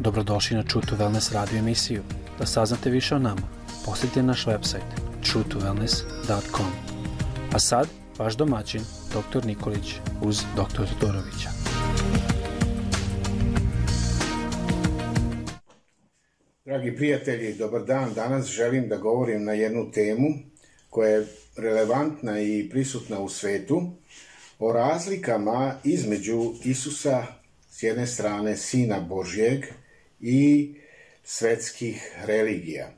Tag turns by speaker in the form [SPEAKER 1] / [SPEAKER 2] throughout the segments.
[SPEAKER 1] Dobrodošli na True to Wellness radio emisiju. Da saznate više o nama, posjetite naš website truetowellness.com. A sad, vaš domaćin, dr. Nikolić uz dr. Todorovića.
[SPEAKER 2] Dragi prijatelji, dobar dan. Danas želim da govorim na jednu temu koja je relevantna i prisutna u svetu, o razlikama između Isusa, s jedne strane Sina Božjeg, i svetskih religija.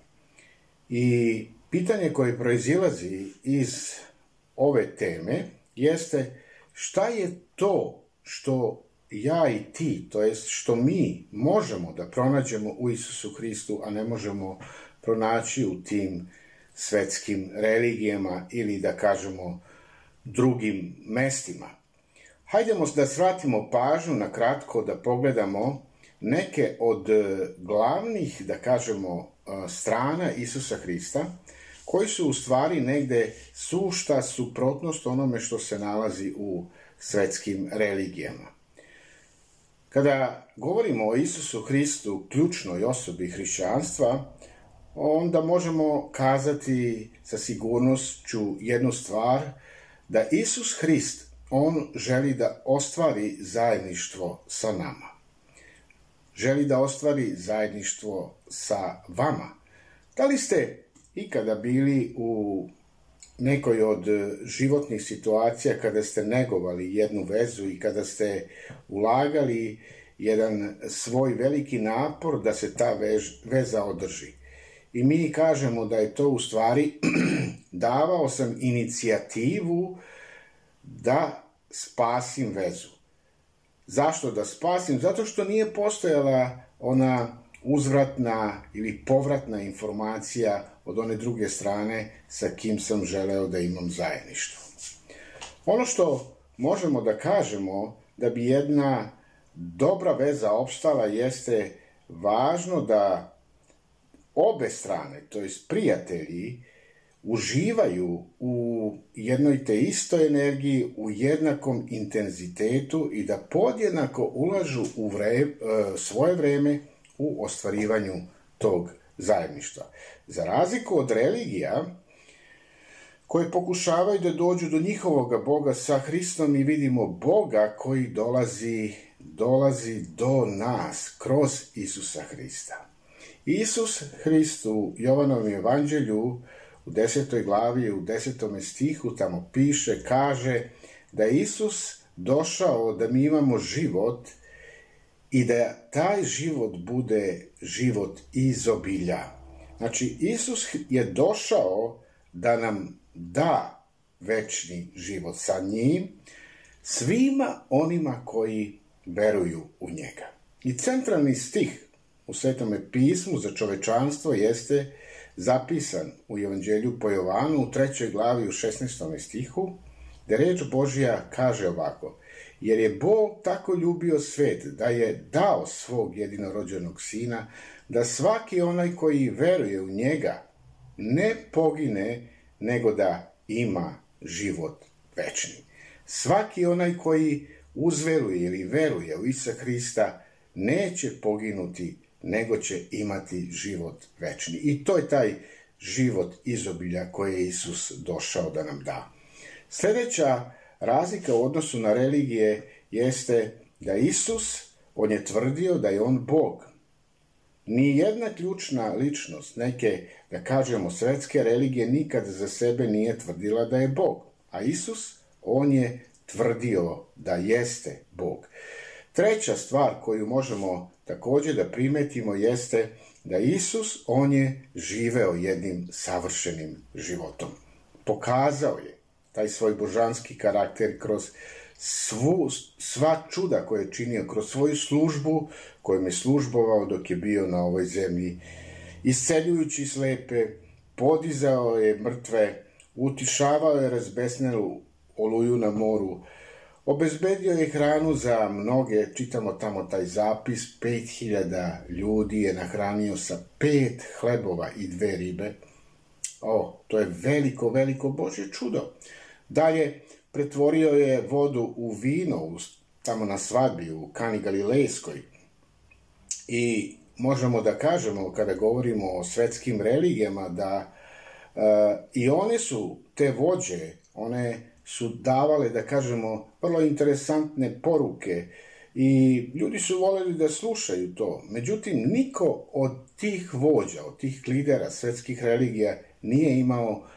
[SPEAKER 2] I pitanje koje proizilazi iz ove teme jeste šta je to što ja i ti, to jest što mi možemo da pronađemo u Isusu Hristu, a ne možemo pronaći u tim svetskim religijama ili da kažemo drugim mestima. Hajdemo da svratimo pažnju na kratko da pogledamo neke od glavnih, da kažemo, strana Isusa Hrista, koji su u stvari negde sušta suprotnost onome što se nalazi u svetskim religijama. Kada govorimo o Isusu Hristu, ključnoj osobi hrišćanstva, onda možemo kazati sa sigurnošću jednu stvar, da Isus Hrist, on želi da ostvari zajedništvo sa nama. Želi da ostvari zajedništvo sa vama. Da li ste ikada bili u nekoj od životnih situacija kada ste negovali jednu vezu i kada ste ulagali jedan svoj veliki napor da se ta veza održi? I mi kažemo da je to u stvari davao sam inicijativu da spasim vezu. Zašto da spasim? Zato što nije postojala ona uzvratna ili povratna informacija od one druge strane sa kim sam želeo da imam zajedništvo. Ono što možemo da kažemo da bi jedna dobra veza opstala jeste važno da obe strane, to jest prijatelji, uživaju u jednoj te istoj energiji, u jednakom intenzitetu i da podjednako ulažu u svoje vreme u ostvarivanju tog zajedništva. Za razliku od religija koje pokušavaju da dođu do njihovog Boga, sa Hristom mi vidimo Boga koji dolazi do nas kroz Isusa Hrista. Isus Hrist u Jovanovom evanđelju u 10. glavi, u 10. stihu tamo piše, kaže da je Isus došao da mi imamo život i da taj život bude život izobilja. Znači, Isus je došao da nam da večni život sa njim, svima onima koji veruju u njega. I centralni stih u Svetome pismu za čovečanstvo jeste zapisan u Evanđelju po Jovanu u 3. glavi u 16. stihu, gde reč Božja kaže ovako: jer je Bog tako ljubio svet da je dao svog jedinorođenog sina, da svaki onaj koji veruje u njega ne pogine, nego da ima život večni. Svaki onaj koji uzveruje ili veruje u Isusa Hrista neće poginuti, nego će imati život večni. I to je taj život izobilja koje je Isus došao da nam da. Sljedeća razlika u odnosu na religije jeste da Isus, on je tvrdio da je on Bog. Ni jedna ključna ličnost neke, da kažemo, svetske religije nikad za sebe nije tvrdila da je Bog. A Isus, on je tvrdio da jeste Bog. Treća stvar koju možemo također da primetimo jeste da Isus, on je živeo jednim savršenim životom. Pokazao je taj svoj božanski karakter kroz sva čuda koje je činio, kroz svoju službu kojom je službovao dok je bio na ovoj zemlji, isceljujući slepe, podizao je mrtve, utišavao je razbesnelu oluju na moru, obezbedio je hranu za mnoge, čitamo tamo taj zapis, 5000 ljudi je nahranio sa 5 hlebova i 2 ribe. To je veliko, veliko Božje čudo. Dalje, pretvorio je vodu u vino tamo na svadbi u Kani Galilejskoj. I možemo da kažemo, kada govorimo o svetskim religijama, da i one su, te vođe, one su davale, da kažemo, vrlo interesantne poruke i ljudi su voljeli da slušaju to. Međutim, niko od tih vođa, od tih lidera svetskih religija nije imao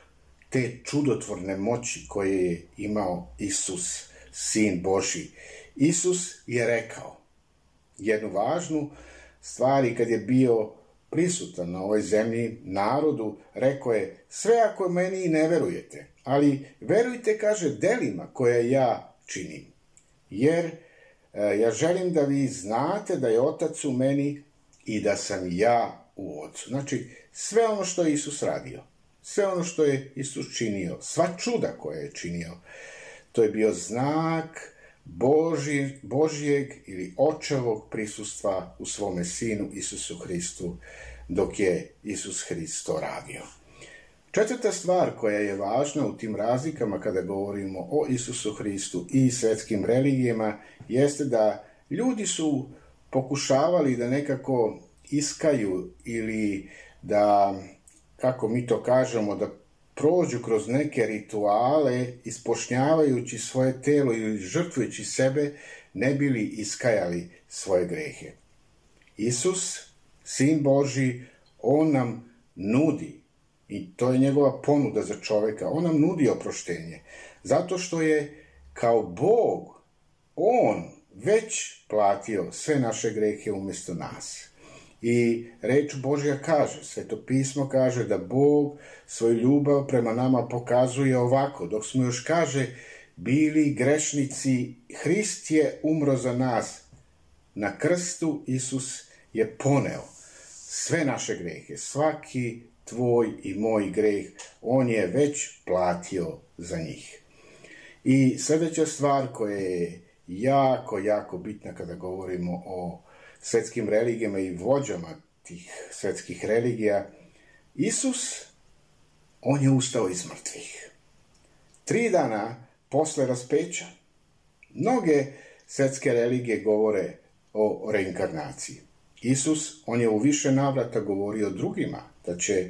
[SPEAKER 2] te čudotvorne moći koje je imao Isus, Sin Božji. Isus je rekao jednu važnu stvar i kad je bio prisutan na ovoj zemlji narodu, rekao je: sve ako meni ne verujete, ali verujte, kaže, delima koje ja činim. Jer ja želim da vi znate da je Otac u meni i da sam ja u Otcu. Znači, sve ono što je Isus radio, sve ono što je Isus činio, sva čuda koje je činio, to je bio znak Božjeg ili očevog prisustva u svome Sinu Isusu Hristu dok je Isus Hrist to radio. Četvrta stvar koja je važna u tim razlikama kada govorimo o Isusu Hristu i svetskim religijama jeste da ljudi su pokušavali da nekako iskaju ili da, kako mi to kažemo, da prođu kroz neke rituale ispošnjavajući svoje telo ili žrtvujući sebe, ne bili iskajali svoje grehe. Isus, Sin Božji, on nam nudi, i to je njegova ponuda za čoveka, on nam nudi oproštenje, zato što je kao Bog, on već platio sve naše grehe umjesto nas. I reč Božja kaže, Sveto pismo kaže da Bog svoju ljubav prema nama pokazuje ovako: dok smo još, kaže, bili grešnici, Hrist je umro za nas. Na krstu Isus je poneo sve naše grehe, svaki tvoj i moj greh, on je već platio za njih. I sljedeća stvar koja je jako bitna kada govorimo o svetskim religijama i vođama tih svetskih religija, Isus, on je ustao iz mrtvih. 3 dana posle raspeća. Mnoge svetske religije govore o reinkarnaciji. Isus, on je u više navrata govorio drugima da će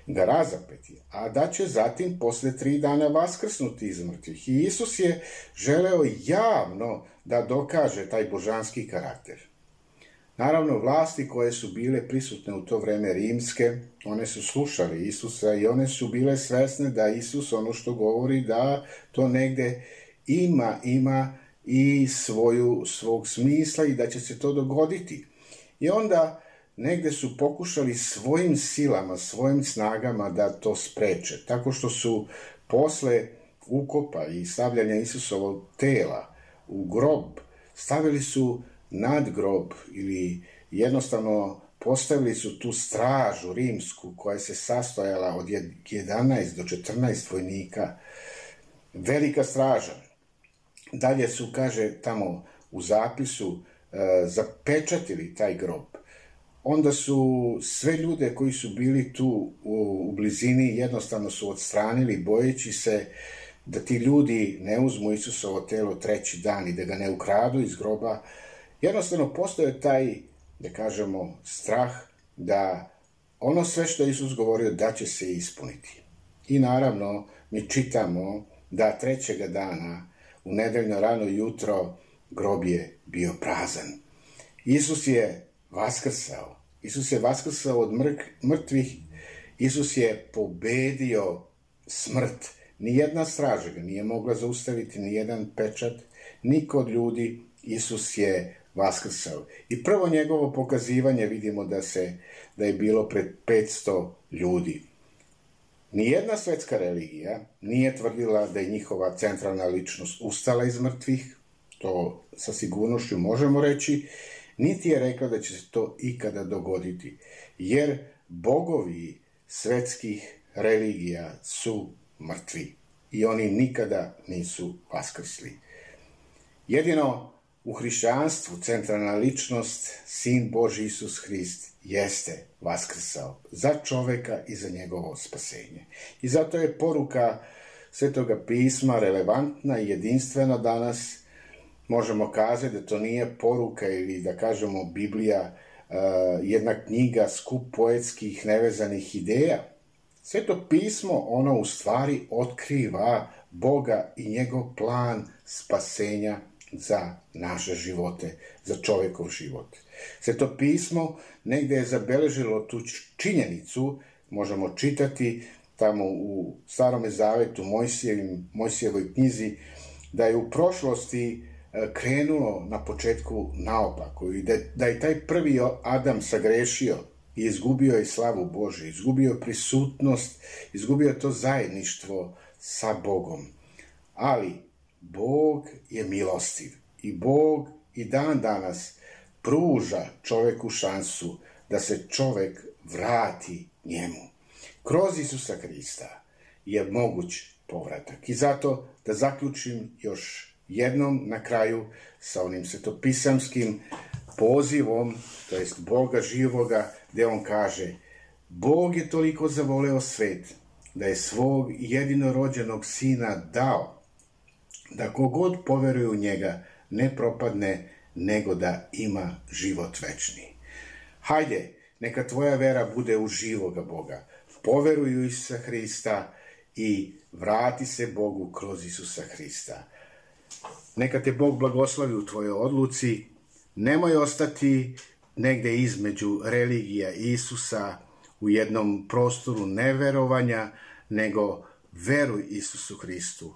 [SPEAKER 2] ga razapeti, a da će zatim posle 3 dana vaskrsnuti iz mrtvih. I Isus je želeo javno da dokaže taj božanski karakter. Naravno, vlasti koje su bile prisutne u to vreme rimske, one su slušali Isusa i one su bile svesne da Isus ono što govori, da to negde ima i svog smisla i da će se to dogoditi. I onda negde su pokušali svojim silama, svojim snagama da to spreče, tako što su posle ukopa i stavljanja Isusovog tela u grob, stavili su nad grob ili jednostavno postavili su tu stražu rimsku koja se sastojala od 11 do 14 vojnika. Velika straža. Dalje su, kaže tamo u zapisu, zapečatili taj grob. Onda su sve ljude koji su bili tu u blizini jednostavno su odstranili, bojeći se da ti ljudi ne uzmu Isusovo telo 3. dan i da ga ne ukradu iz groba. Jednostavno postoje taj, da kažemo, strah da ono sve što je Isus govorio da će se ispuniti. I naravno mi čitamo da 3. dana u nedeljno rano jutro grob je bio prazan. Isus je vaskrsao. Isus je vaskrsao od mrtvih. Isus je pobedio smrt. Nijedna straža ga nije mogla zaustaviti, nijedan pečat, niko od ljudi. Isus je vaskrsao. I prvo njegovo pokazivanje vidimo da je bilo pred 500 ljudi. Nijedna svetska religija nije tvrdila da je njihova centralna ličnost ustala iz mrtvih, to sa sigurnošću možemo reći, niti je rekla da će se to ikada dogoditi, jer bogovi svetskih religija su mrtvi i oni nikada nisu vaskrsli. Jedino u hrišćanstvu centralna ličnost, Sin Božji Isus Hrist, jeste vaskrsao za čoveka i za njegovo spasenje. I zato je poruka Svetoga pisma relevantna i jedinstvena danas. Možemo kazati da to nije poruka ili da kažemo Biblija jedna knjiga, skup poetskih nevezanih ideja. Sveto pismo, ono u stvari otkriva Boga i njegov plan spasenja za naše živote, za čovjekov život. Sveto pismo negdje je zabeležilo tu činjenicu, možemo čitati tamo u Starome zavetu, Mojsijevoj knjizi, da je u prošlosti krenulo na početku naopako i da je taj prvi Adam sagrešio i izgubio je slavu Božju, izgubio prisutnost, izgubio to zajedništvo sa Bogom. Ali Bog je milostiv i Bog i dan danas pruža čovjeku šansu da se čovjek vrati njemu. Kroz Isusa Hrista je moguć povratak. I zato da zaključim još jednom na kraju sa onim svetopisamskim pozivom, to jest Boga živoga, gdje on kaže: Bog je toliko zavoleo svet da je svog jedinorođenog sina dao, da kogod poveruje u njega ne propadne, nego da ima život večni. Hajde, neka tvoja vera bude u živoga Boga. Poveruj u Isusa Hrista i vrati se Bogu kroz Isusa Hrista. Neka te Bog blagoslovi u tvojoj odluci. Nemoj ostati negdje između religija Isusa u jednom prostoru neverovanja, nego veruj Isusu Hristu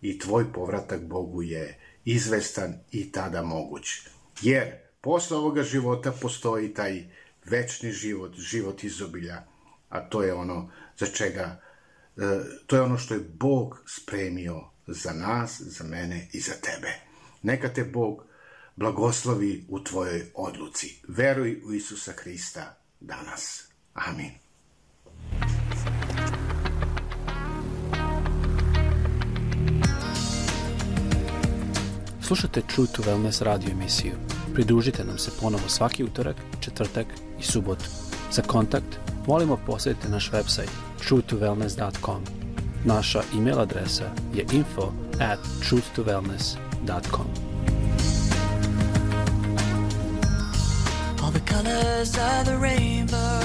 [SPEAKER 2] i tvoj povratak Bogu je izvestan i tada moguć. Jer posle ovoga života postoji taj večni život, život izobilja, a to je ono za čega, to je ono što je Bog spremio za nas, za mene i za tebe. Neka te Bog blagoslovi u tvojoj odluci. Veruj u Isusa Hrista danas. Amin.
[SPEAKER 1] Slušajte True to Wellness radio emisiju. Pridružite nam se ponovo svaki utorak, četvrtak i subotu. Za kontakt molimo posjetite naš website truetowellness.com. Naša email adresa je info@truetowellness.com.
[SPEAKER 3] All the colors of the rainbow